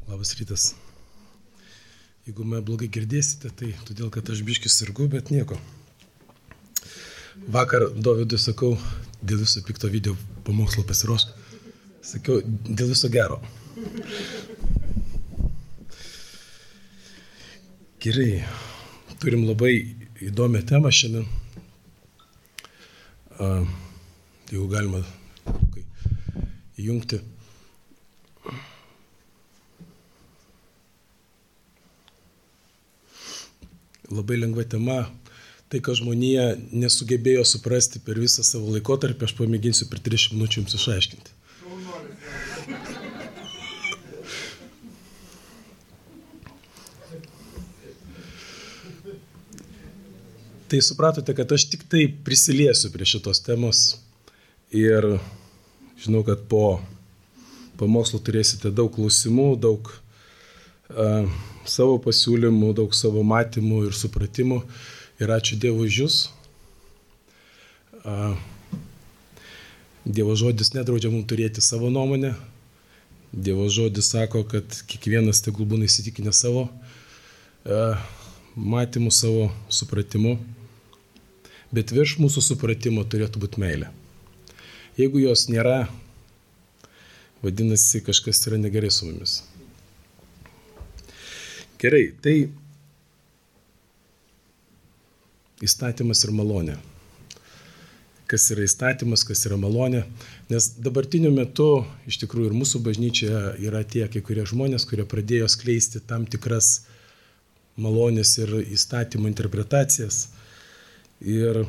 Labas rytas. Jeigu mane blogai girdėsite, tai todėl, kad aš biškis sirgu, bet nieko. Vakar Dovydui sakau, dėl viso pikto video pamokslo pasiruošk. Sakiau, dėl viso gero. Gerai, turim labai įdomią temą šiandien. Jeigu galima įjungti. Labai lengva tema, tai, ką žmonija nesugebėjo suprasti per visą savo laikotarpį, aš pamėginsiu per 30 minučių jums išaiškinti. Tai supratote, kad aš tik tai prisiliesiu prie šitos temos ir žinau, kad po pamokslo turėsite daug klausimų, daug savo pasiūlymų, daug savo matymų ir supratimų. Ir ačiū Dievui už jūs. Dievo žodis nedraudžia mums turėti savo nuomonę. Dievo žodis sako, kad kiekvienas tegul būna įsitikinęs savo matymu, savo supratimu. Bet virš mūsų supratimo turėtų būti meilė. Jeigu jos nėra, vadinasi, kažkas yra negerai su mumis. Gerai, tai įstatymas ir malonė. Kas yra įstatymas, kas yra malonė. Nes dabartiniu metu, iš tikrųjų, ir mūsų bažnyčioje yra tie kai kurie žmonės, kurie pradėjo skleisti tam tikras malonės ir įstatymų interpretacijas. Ir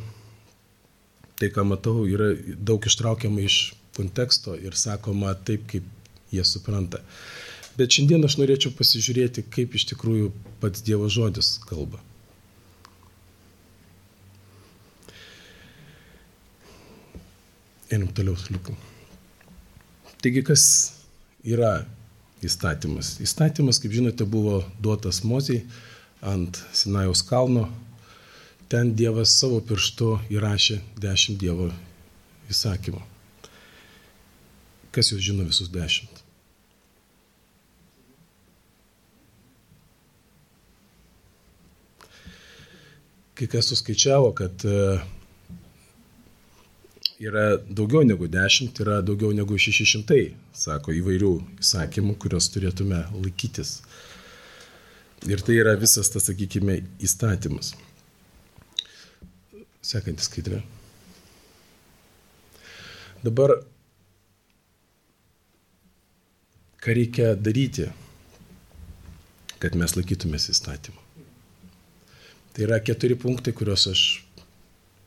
tai, ką matau, yra daug ištraukiama iš konteksto ir sakoma taip, kaip jie supranta. Bet šiandien aš norėčiau pasižiūrėti, kaip iš tikrųjų pats Dievo žodis kalba. Einam toliau, liukam. Taigi, kas yra įstatymas? Įstatymas, kaip žinote, buvo duotas Mozei ant Sinajaus kalno. Ten Dievas savo pirštu įrašė 10 Dievo įsakymų. Kas jūs žino visus 10? Kai kas suskaičiavo, kad yra daugiau negu 10, yra daugiau negu 600, sako, įvairių įsakymų, kurios turėtume laikytis. Ir tai yra visas tas, sakykime, įstatymas. Sekantis skaidrė. Dabar, ką reikia daryti, kad mes laikytumės įstatymą? Tai yra 4 punktai, kuriuos aš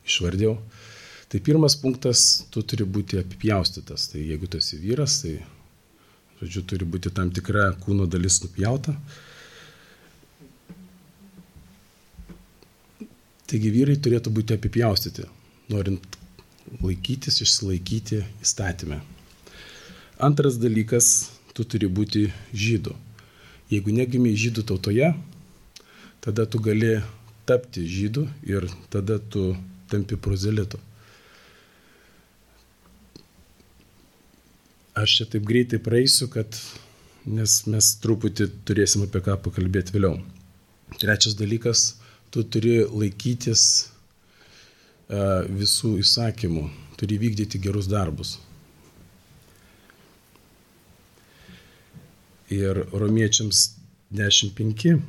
išvardėjau. Tai pirmas punktas, tu turi būti apipjaustytas. Tai jeigu tu esi vyras, tai, žodžiu, turi būti tam tikra kūno dalis nupjauta. Taigi vyrai turėtų būti apipjaustyti, norint laikytis, išsilaikyti įstatymę. Antras dalykas, tu turi būti žydu. Jeigu negimei žydų tautoje, tada tu gali tapti žydu ir tada tu tampi prozelitu. Aš čia taip greitai praeisiu, nes mes truputį turėsim apie ką pakalbėti vėliau. Trečias dalykas, tu turi laikytis visų įsakymų, turi vykdyti gerus darbus. Ir Romiečiams 10:5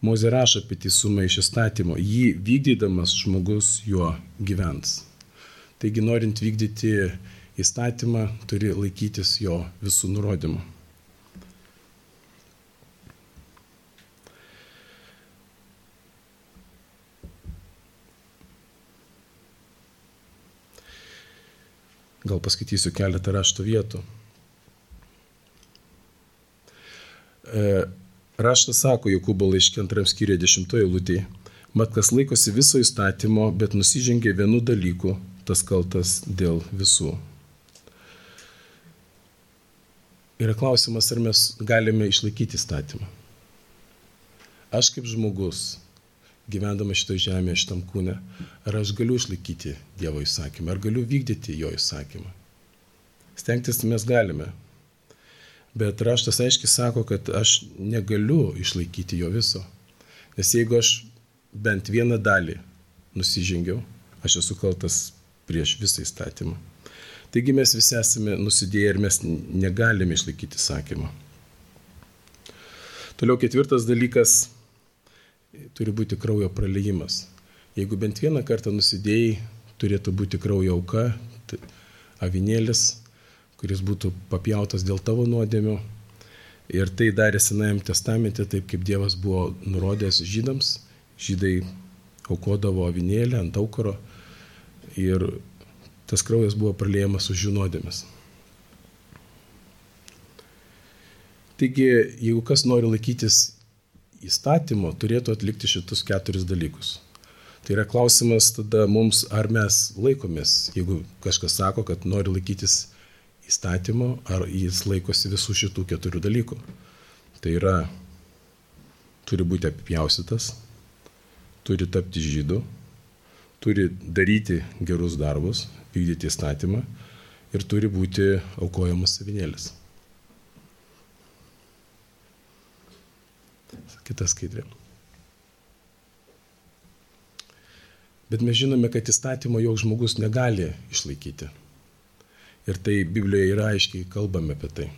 Mozė rašo apie teisumą iš įstatymo. Jį vykdydamas žmogus juo gyvens. Taigi, norint vykdyti įstatymą, turi laikytis jo visų nurodymų. Gal paskaitysiu keletą rašto vietų. Raštas sako Jokūbo laiške 2 skyriuje 10 eilutėje, mat kas laikosi viso įstatymo, bet nusižengia vienu dalyku, tas kaltas dėl visų. Yra klausimas, ar mes galime išlaikyti įstatymą. Aš kaip žmogus, gyvendama šitoje žemėje, šitam kūne, ar aš galiu išlaikyti Dievo įsakymą, ar galiu vykdyti jo įsakymą. Stengtis mes galime. Bet raštas aiškiai sako, kad aš negaliu išlaikyti jo viso. Nes jeigu aš bent vieną dalį nusižengiau, aš esu kaltas prieš visą įstatymą. Taigi mes visi esame nusidėję ir mes negalime išlaikyti įsakymą. Toliau 4 dalykas turi būti kraujo praleijimas. Jeigu bent vieną kartą nusidėjai, turėtų būti kraujo auka, avinėlis, kuris būtų papjautas dėl tavo nuodėmių. Ir tai darė Senajame testamente, taip kaip Dievas buvo nurodęs žydams. Žydai aukodavo avinėlį ant aukuro ir tas kraujas buvo praleijamas už jų nuodėmes. Taigi, jeigu kas nori laikytis įstatymo, turėtų atlikti šitus 4 dalykus. Tai yra klausimas tada mums, ar mes laikomės, jeigu kažkas sako, kad nori laikytis įstatymo, ar jis laikosi visų šitų 4 dalykų. Tai yra, turi būti apipjaustytas, turi tapti žydu, turi daryti gerus darbus, vykdyti įstatymą ir turi būti aukojamas avinėlis. Kita skaidrė. Bet mes žinome, kad įstatymo joks žmogus negali išlaikyti. Ir tai Biblijoje yra aiškiai kalbame apie tai.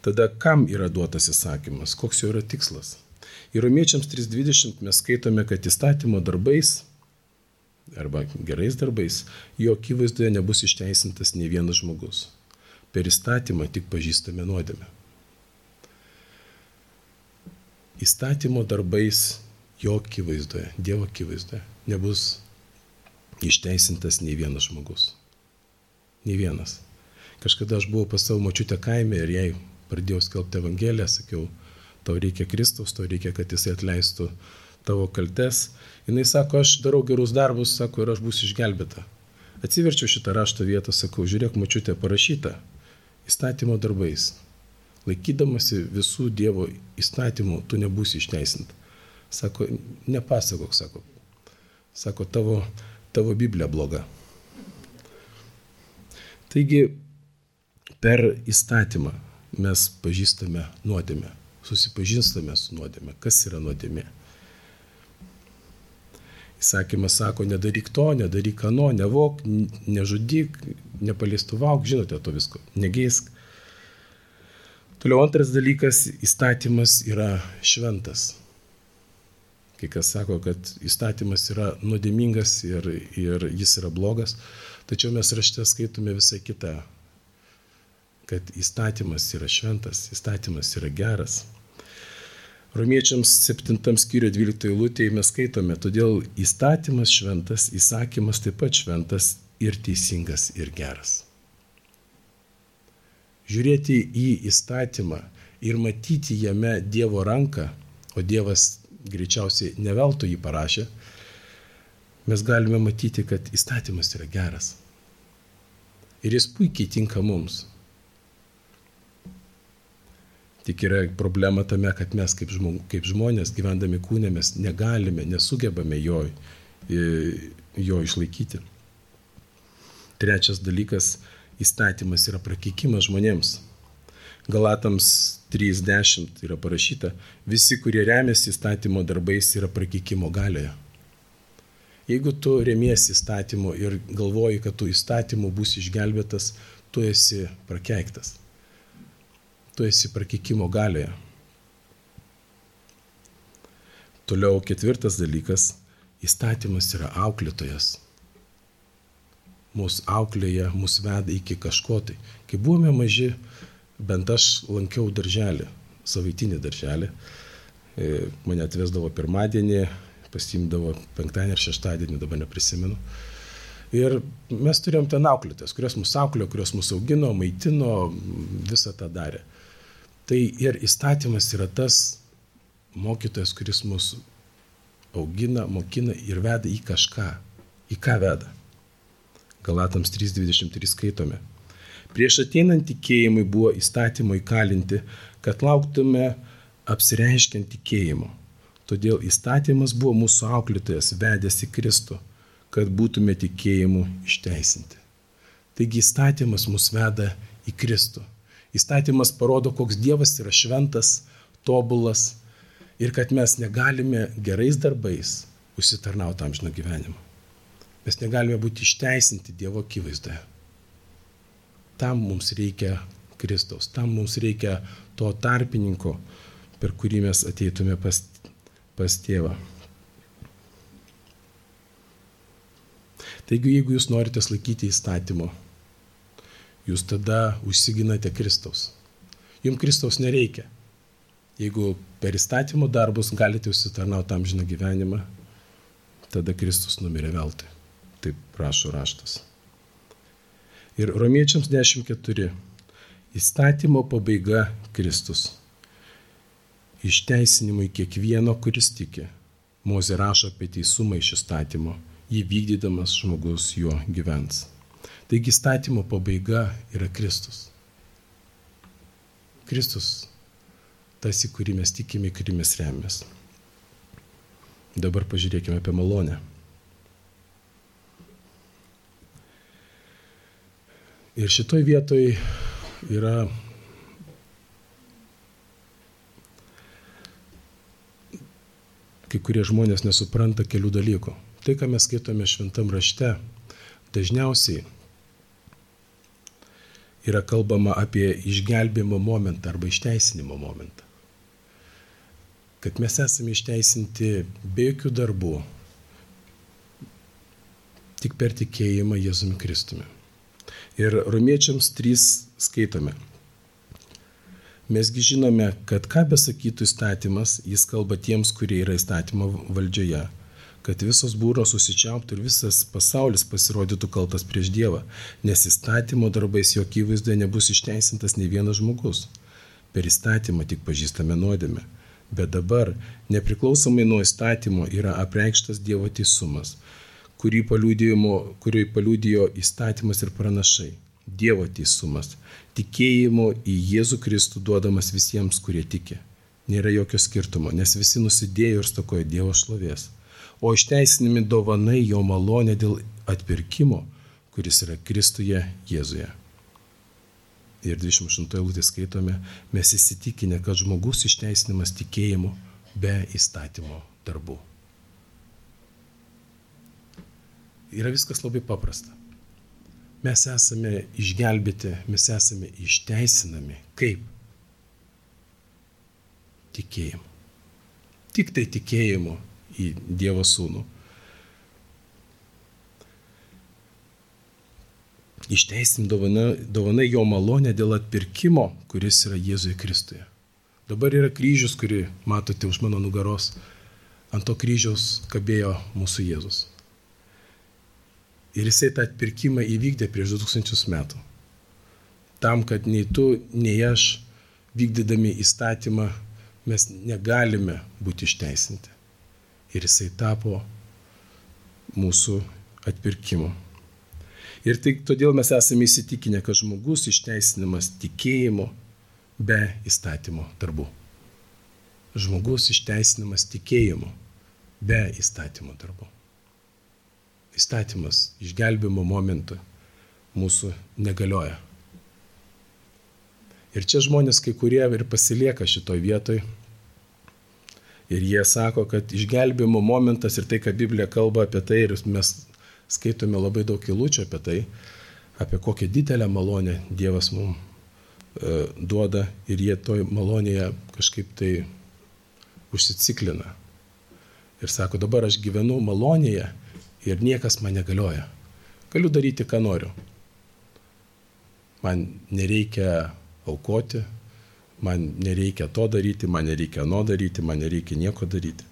Tada kam yra duotas įsakymas? Koks jo yra tikslas? Ir Romiečiams 3:20 mes skaitome, kad įstatymo darbais arba gerais darbais jo akivaizdoje nebus išteisintas nei vienas žmogus. Per įstatymą tik pažįstame nuodėmę. Įstatymo darbais jo akivaizdoje, Dievo akivaizdoje nebus išteisintas nei vienas žmogus. Nei vienas. Kažkada aš buvau pas savo močiutę kaime ir jai pradėjau skelbti Evangeliją, sakiau, tau reikia Kristaus, tau reikia, kad jisai atleistų tavo kaltes. Jinai sako, aš darau gerus darbus, sako, ir aš būsiu išgelbėta. Atsiverčiau šitą rašto vietą, sakau, žiūrėk, močiutė, parašyta įstatymo darbais. Laikydamasi visų Dievo įstatymų, tu nebūsi išteisinta. Sako, nepasakok, sako, tavo Biblija bloga. Taigi, per įstatymą mes pažįstame nuodėmę, susipažįstame su nuodėmė. Kas yra nuodėmė? Įsakymas sako, nedaryk to, nedaryk ano, nevok, nežudyk, nepaliestuvauk, žinote to visko, negeisk. Toliau antras dalykas, įstatymas yra šventas. Kai kas sako, kad įstatymas yra nuodėmingas ir jis yra blogas, tačiau mes rašte skaitome visą kitą, kad įstatymas yra šventas, įstatymas yra geras. Romiečiams 7 skyriuje 12 eilutėje mes skaitome, todėl įstatymas šventas, įsakymas taip pat šventas ir teisingas ir geras. Žiūrėti į įstatymą ir matyti jame Dievo ranką, o Dievas greičiausiai ne veltui jį parašė, mes galime matyti, kad įstatymas yra geras. Ir jis puikiai tinka mums. Tik yra problema tame, kad mes kaip žmonės gyvendami kūne mes negalime, nesugebame jo išlaikyti. Trečias dalykas, įstatymas yra prakeikimas žmonėms. Galatams 3:10 yra parašyta, visi, kurie remiasi įstatymo darbais, yra prakeikimo galioje. Jeigu tu remiesi įstatymu ir galvoji, kad tu įstatymu būsi išgelbėtas, tu esi prakeiktas. Tu esi prakeikimo galioje. Toliau 4 dalykas, įstatymas yra auklėtojas. Mūsų auklėje, mūsų veda iki kažko tai. Kai buvome maži, bent aš lankiau darželį, savaitinį darželį. Mane atvesdavo pirmadienį, pasiimdavo penktadienį ir šeštadienį, dabar neprisimenu. Ir mes turėjom ten auklėtės, kurios mūsų auklėjo, kurios mūsų augino, maitino, visą tą darė. Tai ir įstatymas yra tas mokytojas, kuris mūsų augina, mokina ir veda į kažką. Į ką veda? Galatams 3:23 skaitome. Prieš ateinant tikėjimui buvo įstatymo įkalinti, kad lauktume apsireiškiant tikėjimo. Todėl įstatymas buvo mūsų auklėtojas, vedęs į Kristų, kad būtume tikėjimu išteisinti. Taigi įstatymas mus veda į Kristų. Įstatymas parodo, koks Dievas yra šventas, tobulas ir kad mes negalime gerais darbais užsitarnauti amžino gyvenimo. Mes negalime būti išteisinti Dievo akivaizdoje. Tam mums reikia Kristaus, tam mums reikia to tarpininko, per kurį mes ateitume pas Tėvą. Taigi, jeigu jūs norite laikyti įstatymo, jūs tada užsiginate Kristaus. Jums Kristaus nereikia. Jeigu per įstatymo darbus galite užsitarnauti amžiną gyvenimą, tada Kristus numirė veltui. Taip prašo raštas. Ir Romiečiams 10:4. Įstatymo pabaiga Kristus. Išteisinimui kiekvieno, kuris tiki. Mozė rašo apie teisumą iš įstatymo. Jį vykdydamas žmogus juo gyvens. Taigi įstatymo pabaiga yra Kristus. Kristus, tas, į kurį mes tikime, į kurį mes remiamės. Dabar pažiūrėkime apie malonę. Ir šitoj vietoj yra kai kurie žmonės nesupranta kelių dalykų. Tai, ką mes skaitome šventam rašte, dažniausiai yra kalbama apie išgelbėjimo momentą arba išteisinimo momentą. Kad mes esame išteisinti be jokių darbų, tik per tikėjimą Jėzumi Kristumi. Ir Romiečiams 3 skaitome. Mesgi žinome, kad ką besakytų įstatymas, jis kalba tiems, kurie yra įstatymo valdžioje, kad visos būros susičiauptų ir visas pasaulis pasirodytų kaltas prieš Dievą, nes įstatymo darbais jo akivaizdoje nebus išteisintas nei vienas žmogus. Per įstatymą tik pažįstame nuodėmę. Bet dabar, nepriklausomai nuo įstatymo, yra apreikštas Dievo teisumas, kurį paliudijo įstatymas ir pranašai. Dievo teisumas, tikėjimo į Jėzų Kristų duodamas visiems, kurie tiki. Nėra jokio skirtumo, nes visi nusidėjo ir stokojo Dievo šlovės. O išteisinami dovanai jo malonė dėl atpirkimo, kuris yra Kristuje Jėzuje. Ir 28 eilutė skaitome, mes įsitikinę, kad žmogus išteisinimas tikėjimu be įstatymo darbų. Yra viskas labai paprasta. Mes esame išgelbėti, mes esame išteisinami. Kaip? Tikėjimu. Tik tai tikėjimu į Dievo Sūnų. Išteisim dovanai jo malonę dėl atpirkimo, kuris yra Jėzuje Kristuje. Dabar yra kryžius, kurį matote už mano nugaros. Ant to kryžiaus kabėjo mūsų Jėzus. Ir jisai tą atpirkimą įvykdė prieš 2000 metų. Tam, kad nei tu, nei aš, vykdydami įstatymą, mes negalime būti išteisinti. Ir jisai tapo mūsų atpirkimu. Ir tai todėl mes esame įsitikinę, kad žmogus išteisinamas tikėjimu be įstatymo darbų. Žmogus išteisinamas tikėjimu be įstatymo darbų. Įstatymas išgelbėjimo momentu mūsų negalioja. Ir čia žmonės kai kurie ir pasilieka šitoj vietoj. Ir jie sako, kad išgelbėjimo momentas ir tai, ką Biblija kalba apie tai, ir mes skaitome labai daug eilučių apie tai, apie kokią didelę malonę Dievas mums duoda ir jie toj malonėje kažkaip tai užsiciklina. Ir sako, dabar aš gyvenu malonėje ir niekas man negalioja. Galiu daryti, ką noriu. Man nereikia aukoti, man nereikia to daryti, man nereikia ano daryti, man nereikia nieko daryti.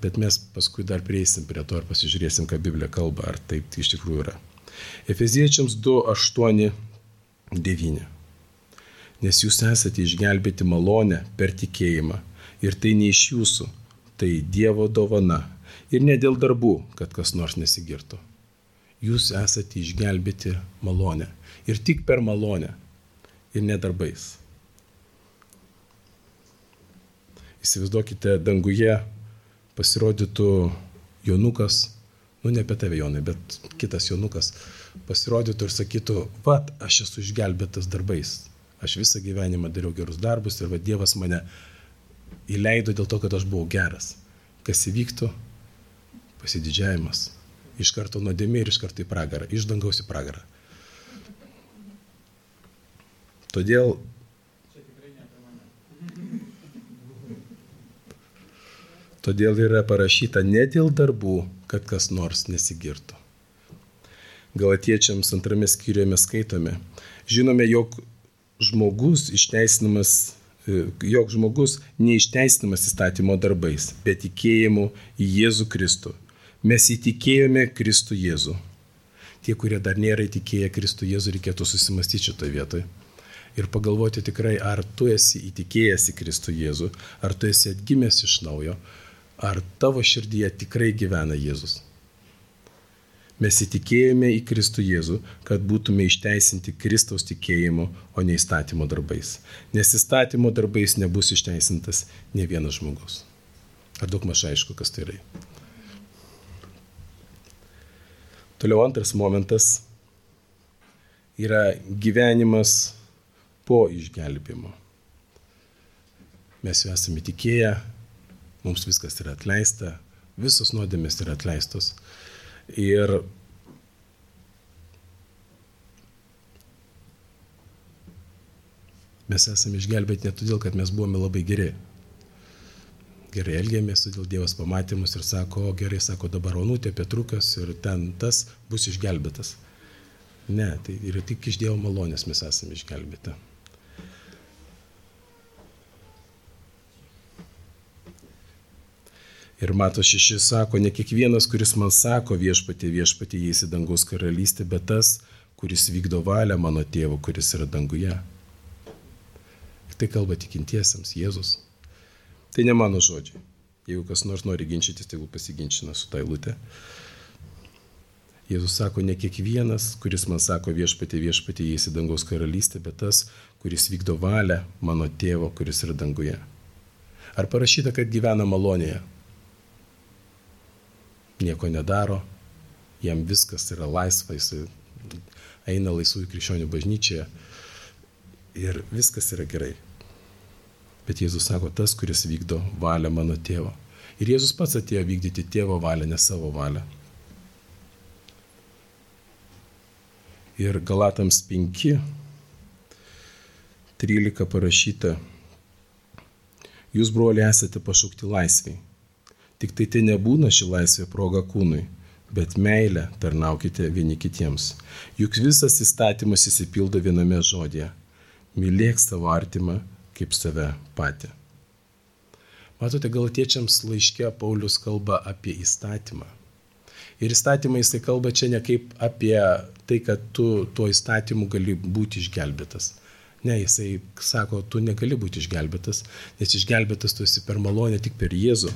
Bet mes paskui dar prieisim prie to ir pasižiūrėsim, ką Biblija kalba, ar taip iš tikrųjų yra. Efeziečiams 2:8-9. Nes jūs esate išgelbėti malonę per tikėjimą ir tai ne iš jūsų, tai Dievo dovana ir ne dėl darbų, kad kas nors nesigirtų. Jūs esate išgelbėti malonę ir tik per malonę ir ne darbais. Įsivaizduokite, danguje pasirodytų Jonukas, ne apie tave Jonai, bet kitas Jonukas pasirodytų ir sakytų, vat, aš esu išgelbėtas darbais, Aš visą gyvenimą dariau gerus darbus ir Dievas mane įleido dėl to, kad aš buvau geras. Kas įvyktų? Pasididžiavimas. Iš karto nuodėmė ir iš karto į pragarą. Iš dangaus į pragarą. Todėl yra parašyta ne dėl darbų, kad kas nors nesigirtų. Galatiečiams 2 skyriuje mes skaitome. Žinome, jog žmogus neišteisinamas įstatymo darbais, bet tikėjimu į Jėzų Kristų. Mes įtikėjome Kristų Jėzų. Tie, kurie dar nėra įtikėję Kristų Jėzų, reikėtų susimastyti šitoje vietoje. Ir pagalvoti tikrai, ar tu esi įtikėjęs į Kristų Jėzų, ar tu esi atgimęs iš naujo, ar tavo širdyje tikrai gyvena Jėzus. Mes įtikėjome į Kristų Jėzų, kad būtume išteisinti Kristaus tikėjimu, o ne įstatymo darbais. Nes įstatymo darbais nebus išteisintas ne vienas žmogus. Ar daug maž aišku, kas tai yra? Toliau antras momentas yra gyvenimas po išgelbėjimo. Mes jau esame tikėję, mums viskas yra atleista, visos nuodėmės yra atleistos. Ir mes esame išgelbėti ne todėl, kad mes buvome labai geri. Gerai elgėmės, todėl Dievas pamatė mus ir sako, gerai, sako, dabar Onutė, Petrukas ir ten tas bus išgelbėtas. Ne, tai yra tik iš Dievo malonės mes esame išgelbėti. Ir Mato 6 sako, ne kiekvienas, kuris man sako viešpatie, viešpatie, įeis į dangaus karalystę, bet tas, kuris vykdo valią mano tėvo, kuris yra danguje. Ir tai kalba tikintiesiems, Jėzus. Tai ne mano žodžiai. Jeigu kas nors nori ginčytis, tai pasiginčina su ta eilute. Jėzus sako, ne kiekvienas, kuris man sako viešpatie, viešpatie, įeis į dangaus karalystę, bet tas, kuris vykdo valią mano tėvo, kuris yra danguje. Ar parašyta, kad gyvena malonėje? Nieko nedaro, jam viskas yra laisva, jis eina laisvųjų krikščionių bažnyčioje ir viskas yra gerai. Bet Jėzus sako, tas, kuris vykdo valią mano tėvo. Ir Jėzus pats atėjo vykdyti tėvo valią, ne savo valią. Ir Galatams 5:13 parašyta, jūs, broliai, esate pašaukti laisviai. Tik tai nebūna ši laisvė proga kūnui, bet meilę tarnaukite vieni kitiems. Juk visas įstatymas įsipildo viename žodėje. Mylėk savo artimą kaip save patį. Matote, Galatiečiams laiške Paulius kalba apie įstatymą. Ir įstatymą jisai kalba čia ne kaip apie tai, kad tu tuo įstatymu gali būti išgelbėtas. Ne, jisai sako, tu negali būti išgelbėtas, nes išgelbėtas tu esi per malonę tik per Jėzų.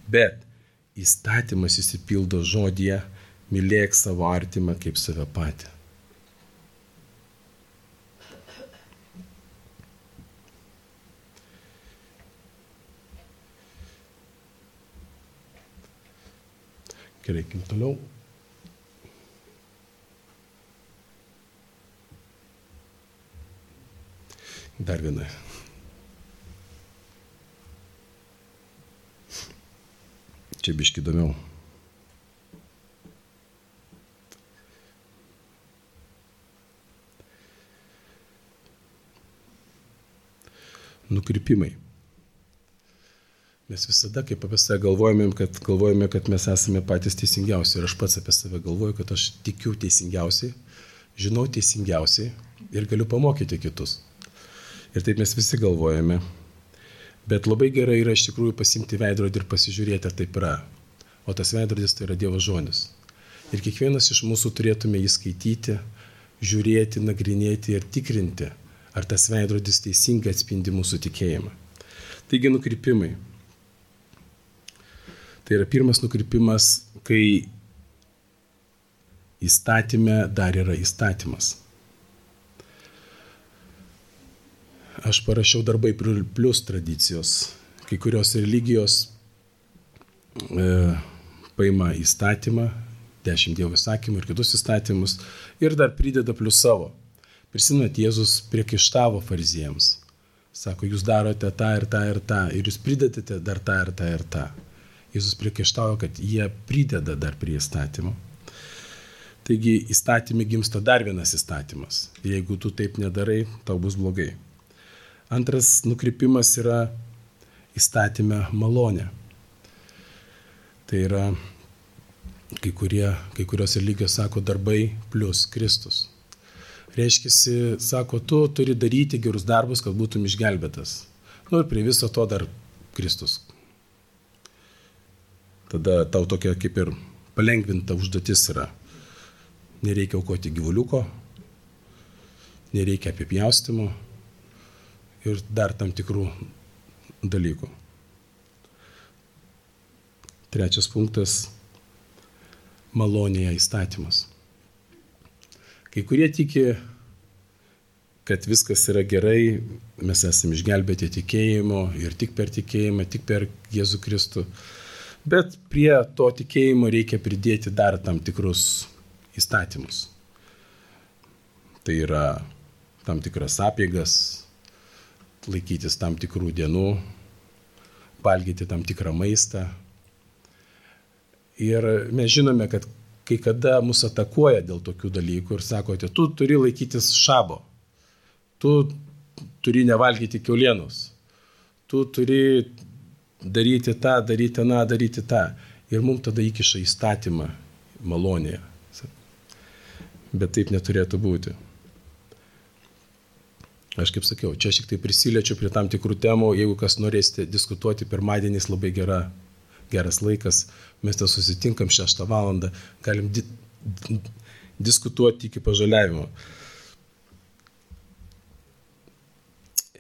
Bet įstatymas įsipildo žodyje, mylėk savo artimą kaip save patį. Gerai, toliau. Dar viena. Čia biški įdomiau. Nukrypimai. Mes visada, kaip apie save galvojame, kad mes esame patys teisingiausi. Ir aš pats apie save galvoju, kad aš tikiu teisingiausiai, žinau teisingiausiai ir galiu pamokyti kitus. Ir taip mes visi galvojame. Bet labai gerai yra iš tikrųjų pasimti veidrodį ir pasižiūrėti, ar taip yra. O tas veidrodis tai yra Dievo žodis. Ir kiekvienas iš mūsų turėtume jį skaityti, žiūrėti, nagrinėti ir tikrinti, ar tas veidrodis teisingai atspindi mūsų tikėjimą. Taigi nukrypimai. Tai yra pirmas nukrypimas, kai įstatyme dar yra įstatymas. Aš parašiau darbai plus tradicijos. Kai kurios religijos paima įstatymą, 10 Dievo įsakymų ir kitus įstatymus ir dar prideda plus savo. Prisimenat, Jėzus priekaištavo fariziejams. Sako, jūs darote tą ir tą ir tą, ir jūs pridedate dar tą ir tą ir tą. Jėzus priekaištavo, kad jie prideda dar prie įstatymo. Taigi įstatymė gimsta dar vienas įstatymas. Jeigu tu taip nedarai, tau bus blogai. Antras nukrypimas yra įstatyme malonė. Tai yra, kai kurios religijos sako darbai plus Kristus. Reiškiasi, sako, tu turi daryti gerus darbus, kad būtum išgelbėtas. Ir prie viso to dar Kristus. Tada tau tokia kaip ir palengvinta užduotis yra. Nereikia aukoti gyvuliuko, nereikia apipjaustimo ir dar tam tikrų dalykų. Trečias punktas – malonėje įstatymas. Kai kurie tiki, kad viskas yra gerai, mes esame išgelbėti tikėjimo ir tik per tikėjimą, tik per Jėzų Kristų. Bet prie to tikėjimo reikia pridėti dar tam tikrus įstatymus. Tai yra tam tikras apeigas, laikytis tam tikrų dienų, valgyti tam tikrą maistą. Ir mes žinome, kad kai kada mus atakuoja dėl tokių dalykų ir sakote, tu turi laikytis šabo, tu turi nevalgyti kiaulienos, tu turi daryti tą, daryti aną, daryti tą. Ir mums tada įkiša įstatymą malonėje. Bet taip neturėtų būti. Aš kaip sakiau, čia šiek tiek prisiliečiu prie tam tikrų temų. Jeigu kas norėsite diskutuoti, pirmadienis labai geras laikas. Mes ten susitinkam 6 valandą, galim diskutuoti iki pažaliavimo.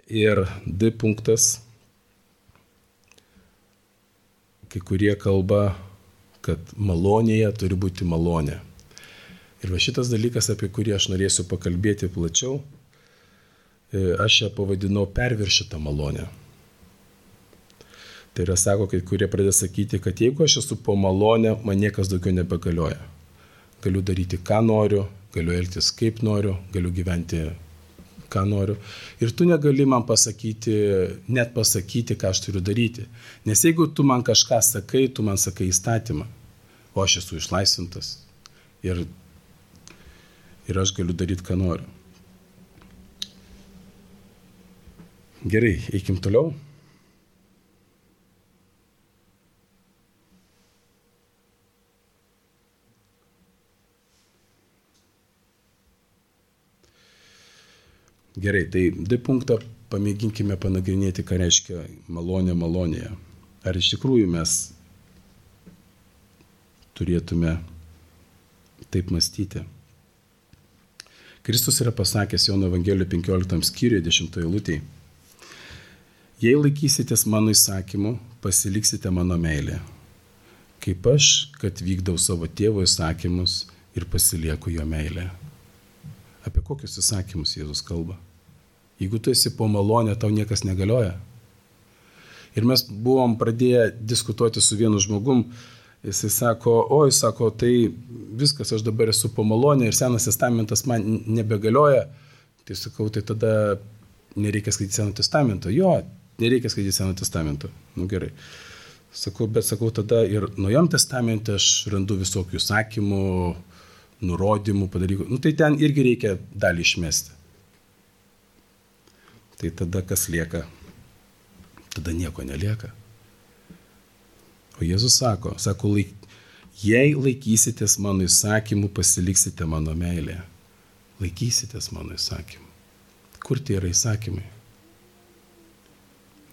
Ir D punktas. Kai kurie kalba, kad malonėje turi būti malonė. Ir va šitas dalykas, apie kurį aš norėsiu pakalbėti plačiau, aš ją pavadinau perviršytą malonę. Tai yra, sako, kai kurie pradeda sakyti, kad jeigu aš esu po malonę, man niekas daugiau nebegalioja. Galiu daryti, ką noriu, galiu elgtis kaip noriu, galiu gyventi, ką noriu. Ir tu negali man net pasakyti, ką aš turiu daryti. Nes jeigu tu man kažką sakai, tu man sakai įstatymą, o aš esu išlaisvintas. Ir aš galiu daryti, ką noriu. Gerai, eikim toliau. Gerai, tai D punktą pamėginkime panagrinėti, ką reiškia malonė malonėje. Ar iš tikrųjų mes turėtume taip mąstyti? Kristus yra pasakęs Jono Evangelijoje 15 skyriuje 10 eilutėje. Jei laikysitės mano įsakymų, pasiliksite mano meilę. Kaip aš, kad vykdau savo tėvo įsakymus ir pasilieku jo meilę. Apie kokius įsakymus Jėzus kalba? Jeigu tu esi po malonę, tau niekas negalioja. Ir mes buvom pradėję diskutuoti su vienu žmogum. Jisai sako, tai viskas, aš dabar esu po malonę ir Senas testamentas man nebegalioja. Tai sakau, tai tada nereikia skaityti Seno testamento. Jo, nereikia skaityti Seno testamento. Gerai. Sakau, tada ir Naujam testamente aš randu visokių įsakymų, nurodymų, padarykų. Tai ten irgi reikia dalį išmesti. Tai tada kas lieka? Tada nieko nelieka. O Jėzus sako, jei laikysitės mano įsakymų, pasiliksite mano meilę. Laikysitės mano įsakymų. Kur tie yra įsakymai?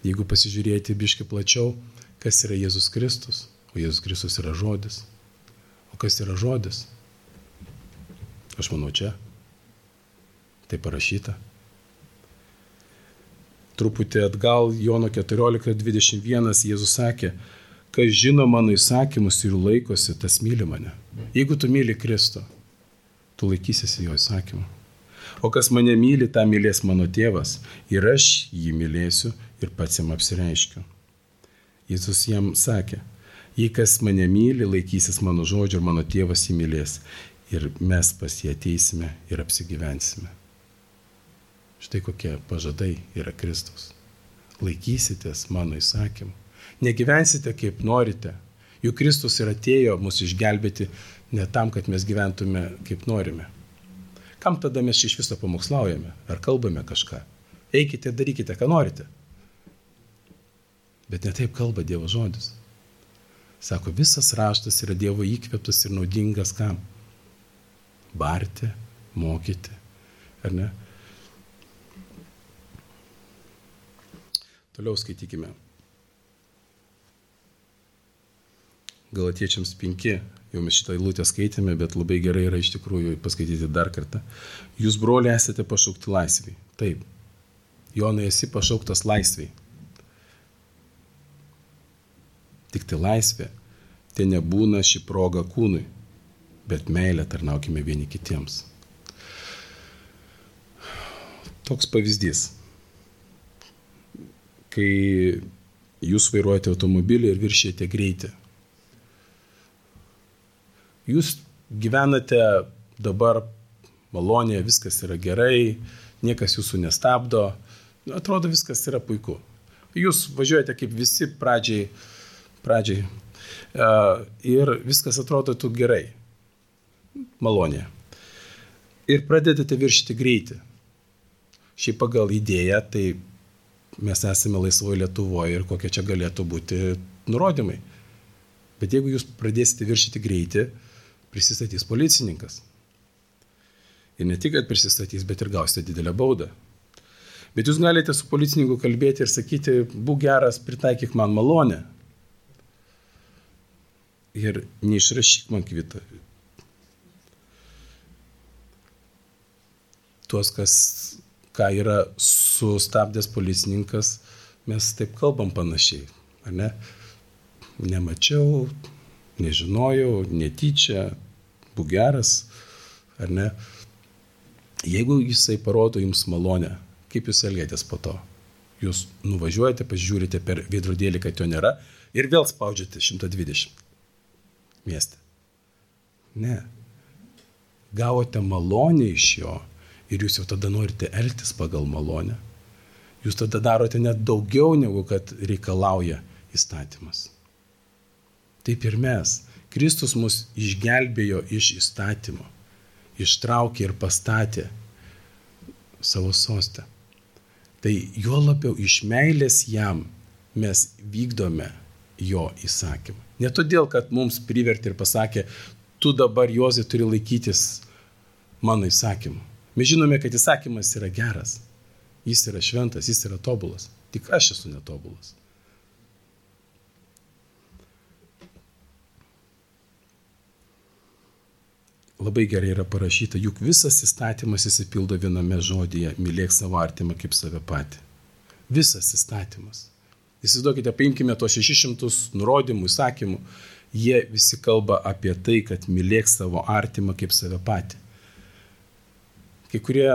Jeigu pasižiūrėti biškį plačiau, kas yra Jėzus Kristus? O Jėzus Kristus yra žodis. O kas yra žodis? Aš manau čia. Tai parašyta. Truputį atgal Jono 14:21 Jėzus sakė, kas žino mano įsakymus ir laikosi, tas myli mane. Jeigu tu myli Kristų, tu laikysiesi jo įsakymų. O kas mane myli, tą mylės mano tėvas. Ir aš jį mylėsiu ir pats jam apsireiškiu. Jėzus jam sakė, jei kas mane myli, laikysis mano žodžio ir mano tėvas jį mylės. Ir mes pas jį ateisime ir apsigyvensime. Štai kokie pažadai yra Kristus. Laikysitės mano įsakymų. Negyvensite kaip norite. Juk Kristus ir atėjo mus išgelbėti ne tam, kad mes gyventume kaip norime. Kam tada mes iš viso pamokslaujame? Ar kalbame kažką? Eikite, darykite, ką norite. Bet ne taip kalba Dievo žodis. Sako, visas raštas yra Dievo įkvėptas ir naudingas kam? Barti, mokyti, ar ne? Toliau skaitykime. Galatiečiams 5, jau mes šitą eilutę skaitėme, bet labai gerai yra iš tikrųjų paskaityti dar kartą. Jūs, broliai, esate pašaukti laisvei. Taip. Jonai, esi pašauktas laisvei. Tik tai laisvė, tai nebūna ši proga kūnui, bet meilę tarnaukime vieni kitiems. Toks pavyzdys. Kai jūs vairuojate automobilį ir viršijate greitį. Jūs gyvenate dabar malonėje, viskas yra gerai, niekas jūsų nestabdo, atrodo viskas yra puiku. Jūs važiuojate kaip visi pradžiai ir viskas atrodo tu gerai, malonėje. Ir pradedate viršyti greitį. Šiaip pagal idėją, tai mes esame laisvoje Lietuvoje ir kokie čia galėtų būti nurodymai. Bet jeigu jūs pradėsite viršyti greitį, prisistatys policininkas. Ir ne tik, kad prisistatys, bet ir gausite didelę baudą. Bet jūs galite su policininku kalbėti ir sakyti, būk geras, pritaikyk man malonę. Ir neišrašyk man kvitą. Tuos, ką yra sustabdęs policininkas, mes taip kalbam panašiai. Ar ne? Nemačiau, nežinojau, netyčia, būk geras, ar ne? Jeigu jisai parodo jums malonę, kaip jūs elgiatės po to? Jūs nuvažiuojate, pažiūrite per veidrodėlį, kad jo nėra ir vėl spaudžiate 120 mieste. Ne. Gavote malonę iš jo ir jūs jau tada norite elgtis pagal malonę. Jūs tada darote net daugiau, negu kad reikalauja įstatymas. Taip ir mes. Kristus mus išgelbėjo iš įstatymo, ištraukė ir pastatė savo sostę. Tai juo labiau iš meilės jam mes vykdome jo įsakymą. Ne todėl, kad mums privertė ir pasakė, tu dabar, Jozai, turi laikytis mano įsakymų. Mes žinome, kad įsakymas yra geras, jis yra šventas, jis yra tobulas. Tik aš esu netobulas. Labai gerai yra parašyta, juk visas įstatymas įsipildo viename žodyje, mylėk savo artimą kaip save patį. Visas įstatymas. Įsivaizduokite, paimkime tos 600 nurodymų, įsakymų, jie visi kalba apie tai, kad mylėk savo artimą kaip save patį. Kai kurie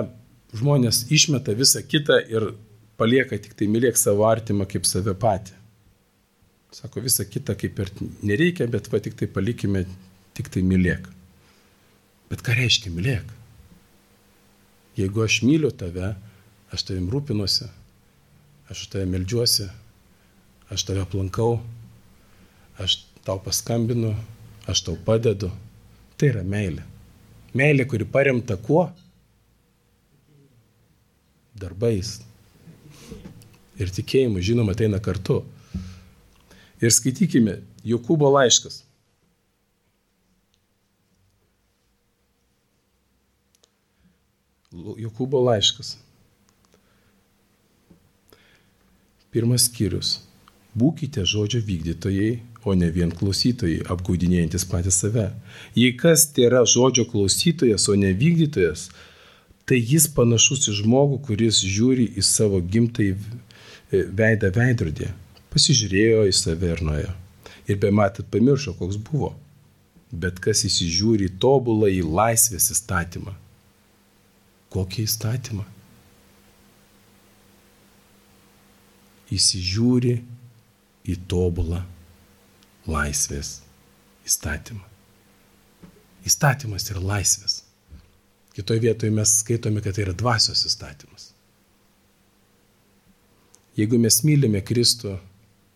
žmonės išmeta visą kitą ir palieka tik tai mylėk savo artimą kaip save patį. Sako, visą kitą kaip ir nereikia, bet va tik tai palikime, tik tai mylėk. Bet ką reiškia mylėk? Jeigu aš myliu tave, aš tavim rūpinuosi, aš tave meldžiuosi, aš tave aplankau, aš tau paskambinu, aš tau padedu. Tai yra meilė. Meilė, kuri paremta kuo? Darbais. Ir tikėjimu, žinoma, ateina kartu. Ir skaitykime Jokūbo laiškas. Jokūbo laiškas. 1 skyrius. Būkite žodžio vykdytojai, o ne vien klausytojai, apgaudinėjantis patys save. Jei kas tėra žodžio klausytojas, o ne vykdytojas, tai jis panašus į žmogų, kuris žiūri į savo gimtąjį veidą veidrodį. Pasižiūrėjo į save ir nuėjo. Ir bematant pamiršo, koks buvo. Bet kas įsižiūri į tobulą į laisvės įstatymą. Kokį įstatymą? Įsižiūri į tobulą laisvės įstatymą. Įstatymas yra laisvės. Kitoje vietoje mes skaitome, kad tai yra dvasios įstatymas. Jeigu mes mylime Kristų,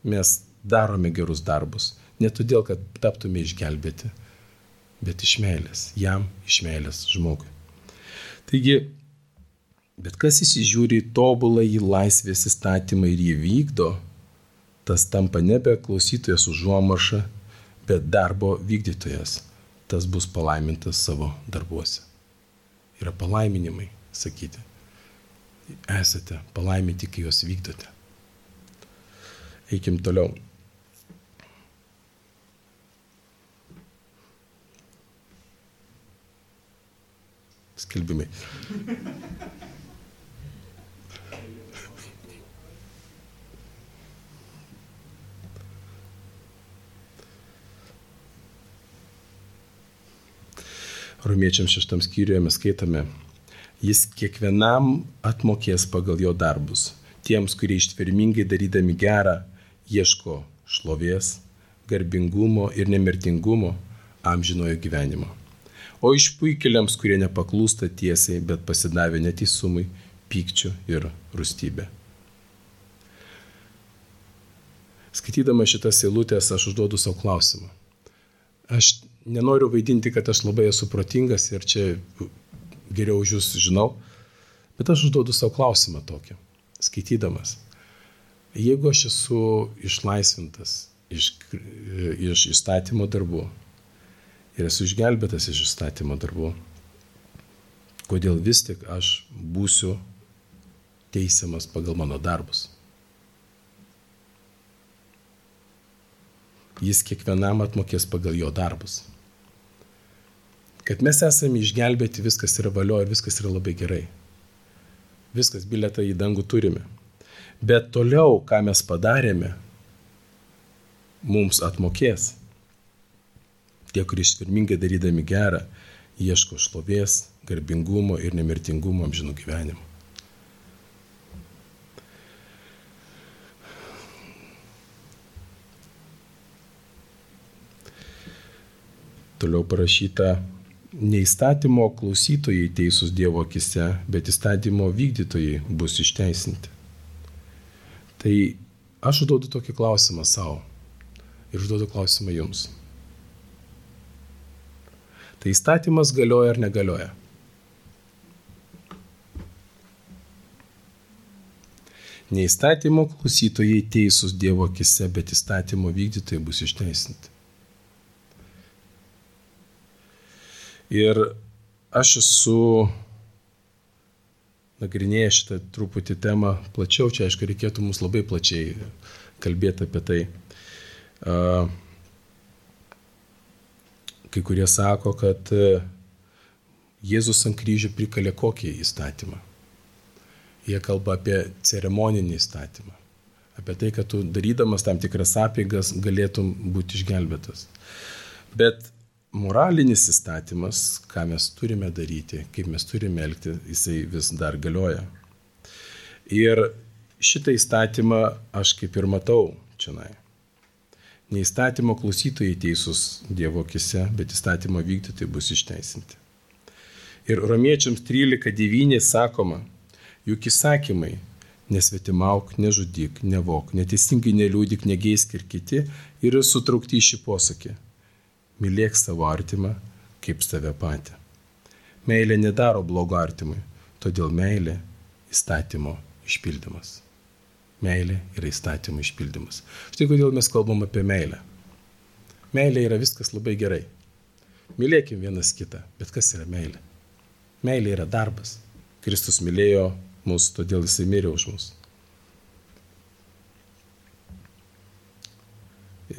mes darome gerus darbus. Ne todėl, kad taptume išgelbėti, bet iš meilės. Jam, iš meilės žmogui. Taigi, bet kas įsižiūri į tobulą į laisvės įstatymą ir jį vykdo, tas tampa nebe klausytojas užuomarša, bet darbo vykdytojas. Tas bus palaimintas savo darbuose. Yra palaiminimai, sakyti. Esate palaiminti, kai juos vykdote. Eikim toliau. Skelbimai. Romiečiams 6 skyriuje mes skaitome, jis kiekvienam atmokės pagal jo darbus. Tiems, kurie ištvermingai darydami gerą, ieško šlovės, garbingumo ir nemirtingumo, amžinojo gyvenimo. O išpuikėliams, kurie nepaklūsta tiesiai, bet pasidavė neteisumui, pykčiu ir rūstybė. Skaitydama šitas eilutės, aš užduodu savo klausimą. Aš nenoriu vaidinti, kad aš labai esu protingas ir čia geriau už jūs žinau, bet aš užduodu savo klausimą tokį, skaitydamas. Jeigu aš esu išlaisvintas iš įstatymo darbų ir esu išgelbėtas iš įstatymo darbų, kodėl vis tik aš būsiu teisiamas pagal mano darbus? Jis kiekvienam atmokės pagal jo darbus. Kad mes esame išgelbėti, viskas yra valio ir viskas yra labai gerai. Viskas, bilietą į dangų turime. Bet toliau, ką mes padarėme, mums atmokės. Tie, kurie ištvermingai darydami gerą, ieško šlovės, garbingumo ir nemirtingumo amžinų gyvenimų. Toliau parašyta, ne įstatymo klausytojai teisūs Dievo akise, bet įstatymo vykdytojai bus išteisinti. Tai aš užduodu tokį klausimą savo ir užduodu klausimą jums. Tai įstatymas galioja ar negalioja? Ne įstatymo klausytojai teisūs Dievo akise, bet įstatymo vykdytojai bus išteisinti. Ir aš esu nagrinėjęs šitą truputį temą plačiau, čia aišku reikėtų mums labai plačiai kalbėti apie tai. Kai kurie sako, kad Jėzus ant kryžių prikalė kokį įstatymą. Jie kalba apie ceremoninį įstatymą. Apie tai, kad tu darydamas tam tikras apeigas galėtum būti išgelbėtas. Bet moralinis įstatymas, ką mes turime daryti, kaip mes turime elgti, jisai vis dar galioja. Ir šitą įstatymą aš kaip ir matau čionai. Ne įstatymo klausytojai teisūs Dievo akise, bet įstatymo vykdytojai bus išteisinti. Ir Romiečiams 13:9 sakoma, juk įsakymai nesvetimauk, nežudyk, nevok, neteisingai neliūdik, negeisk ir kiti yra sutraukti į šį posakį. Mylėk savo artimą kaip save patį. Meilė nedaro blogo artimui, todėl meilė įstatymo išpildymas. Meilė yra įstatymo išpildymas. Štai kodėl mes kalbam apie meilę. Meilė yra viskas labai gerai. Mylėkim vienas kitą, bet kas yra meilė? Meilė yra darbas. Kristus mylėjo mus, todėl jisai mirė už mus.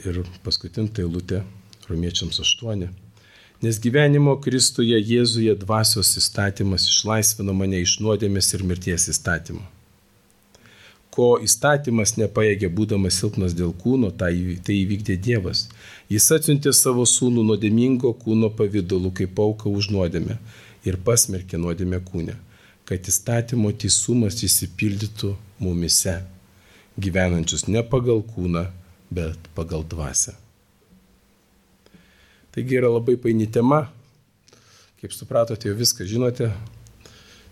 Ir paskutinė eilutė. Romiečiams 8. Nes gyvenimo Kristuje Jėzuje dvasios įstatymas išlaisvino mane iš nuodėmės ir mirties įstatymo. Ko įstatymas nepajėgė būdamas silpnas dėl kūno, tai įvykdė Dievas. Jis atsiuntė savo sūnų nuodėmingo kūno pavidalu kaip auką už nuodėmę ir pasmerkė nuodėmę kūne, kad įstatymo teisumas įsipildytų mumise, gyvenančius ne pagal kūną, bet pagal dvasią. Taigi yra labai paini tema, kaip supratote, jau viską žinote,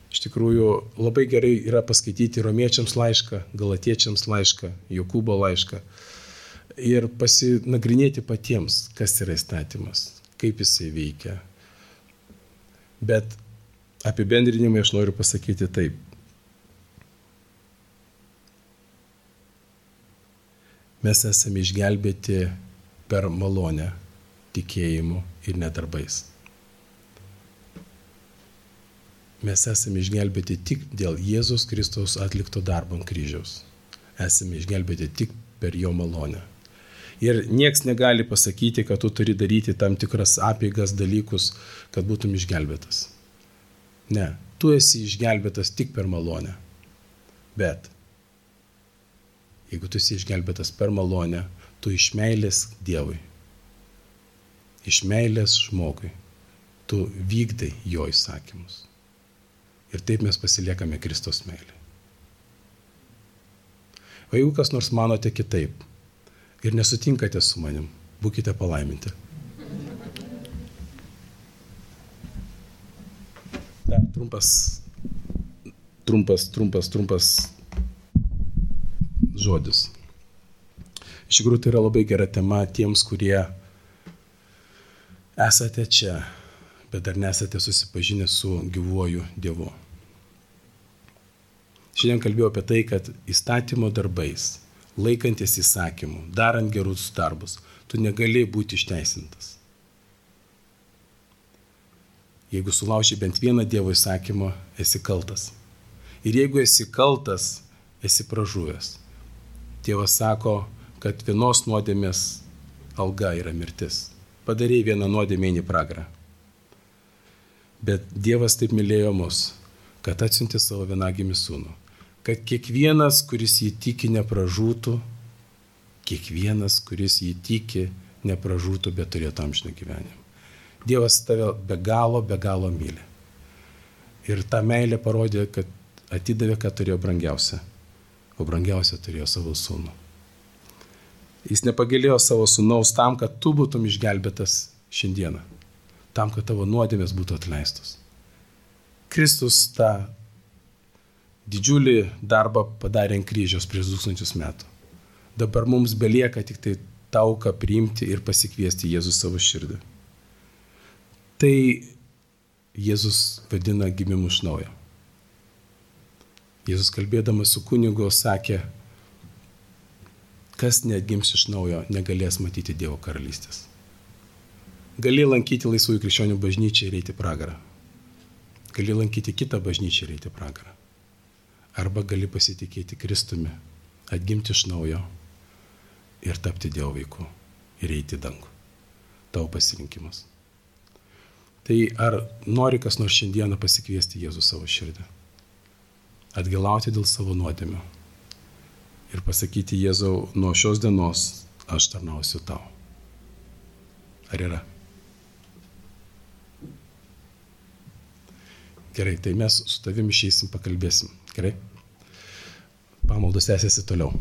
Iš tikrųjų, labai gerai yra paskaityti Romiečiams laišką, Galatiečiams laišką, Jokūbo laišką ir pasinagrinėti patiems, kas yra įstatymas, kaip jisai veikia. Bet apibendrinimai aš noriu pasakyti taip. Mes esame išgelbėti per malonę, tikėjimu ir nedarbais. Mes esame išgelbėti tik dėl Jėzus Kristaus atlikto darbo ant kryžiaus. Esame išgelbėti tik per jo malonę. Ir nieks negali pasakyti, kad tu turi daryti tam tikras apeigas, dalykus, kad būtum išgelbėtas. Ne, tu esi išgelbėtas tik per malonę. Bet jeigu tu esi išgelbėtas per malonę, tu iš meilės Dievui, iš meilės žmogui, tu vykdai jo įsakymus. Ir taip mes pasiliekame Kristaus meilę. O jeigu kas nors manote kitaip ir nesutinkate su manim, būkite palaiminti. Dar trumpas žodis. Iš tikrųjų, tai yra labai gera tema tiems, kurie esate čia, bet dar nesate susipažinę su gyvuoju Dievu. Šiandien kalbėjau apie tai, kad įstatymo darbais, laikantis įsakymų, darant gerus darbus, tu negali būti išteisintas. Jeigu sulauži bent vieną Dievo įsakymą, esi kaltas. Ir jeigu esi kaltas, esi pražuvęs. Dievas sako, kad vienos nuodėmės alga yra mirtis. Padarei vieną nuodėmę į pragarą. Bet Dievas taip mylėjo mus, kad atsiuntė savo vienagimį sūnų. Kad kiekvienas, kuris jį tiki, nepražūtų, kiekvienas, kuris jį tiki, nepražūtų, bet turėtų amžiną gyvenimą. Dievas tave be galo myli. Ir tą meilę parodė, kad atidavė, ką turėjo brangiausia. O brangiausia turėjo savo sūnų. Jis nepagailėjo savo sūnaus tam, kad tu būtum išgelbėtas šiandieną. Tam, kad tavo nuodėmės būtų atleistos. Kristus tą didžiulį darbą padarė ant kryžiaus prieš 2000 metų. Dabar mums belieka tik tai tauką priimti ir pasikviesti Jėzus savo širdį. Tai Jėzus vadina gimimu iš naujo. Jėzus kalbėdamas su kunigu sakė, kas neatgims iš naujo, negalės matyti Dievo karalystės. Gali lankyti laisvųjų krikščionių bažnyčią ir eiti pragarą. Gali lankyti kitą bažnyčią ir eiti pragarą. Arba gali pasitikėti Kristumi, atgimti iš naujo ir tapti Dievo vaiku ir eiti į dangų. Tavo pasirinkimas. Tai ar nori kas nors šiandieną pasikviesti Jėzų savo širdį? Atgailauti dėl savo nuodėmių ir pasakyti Jėzau, nuo šios dienos aš tarnausiu tau. Ar yra? Gerai, tai mes su tavim išeisim, pakalbėsim. Gerai? Pamaldos tęsiasi toliau.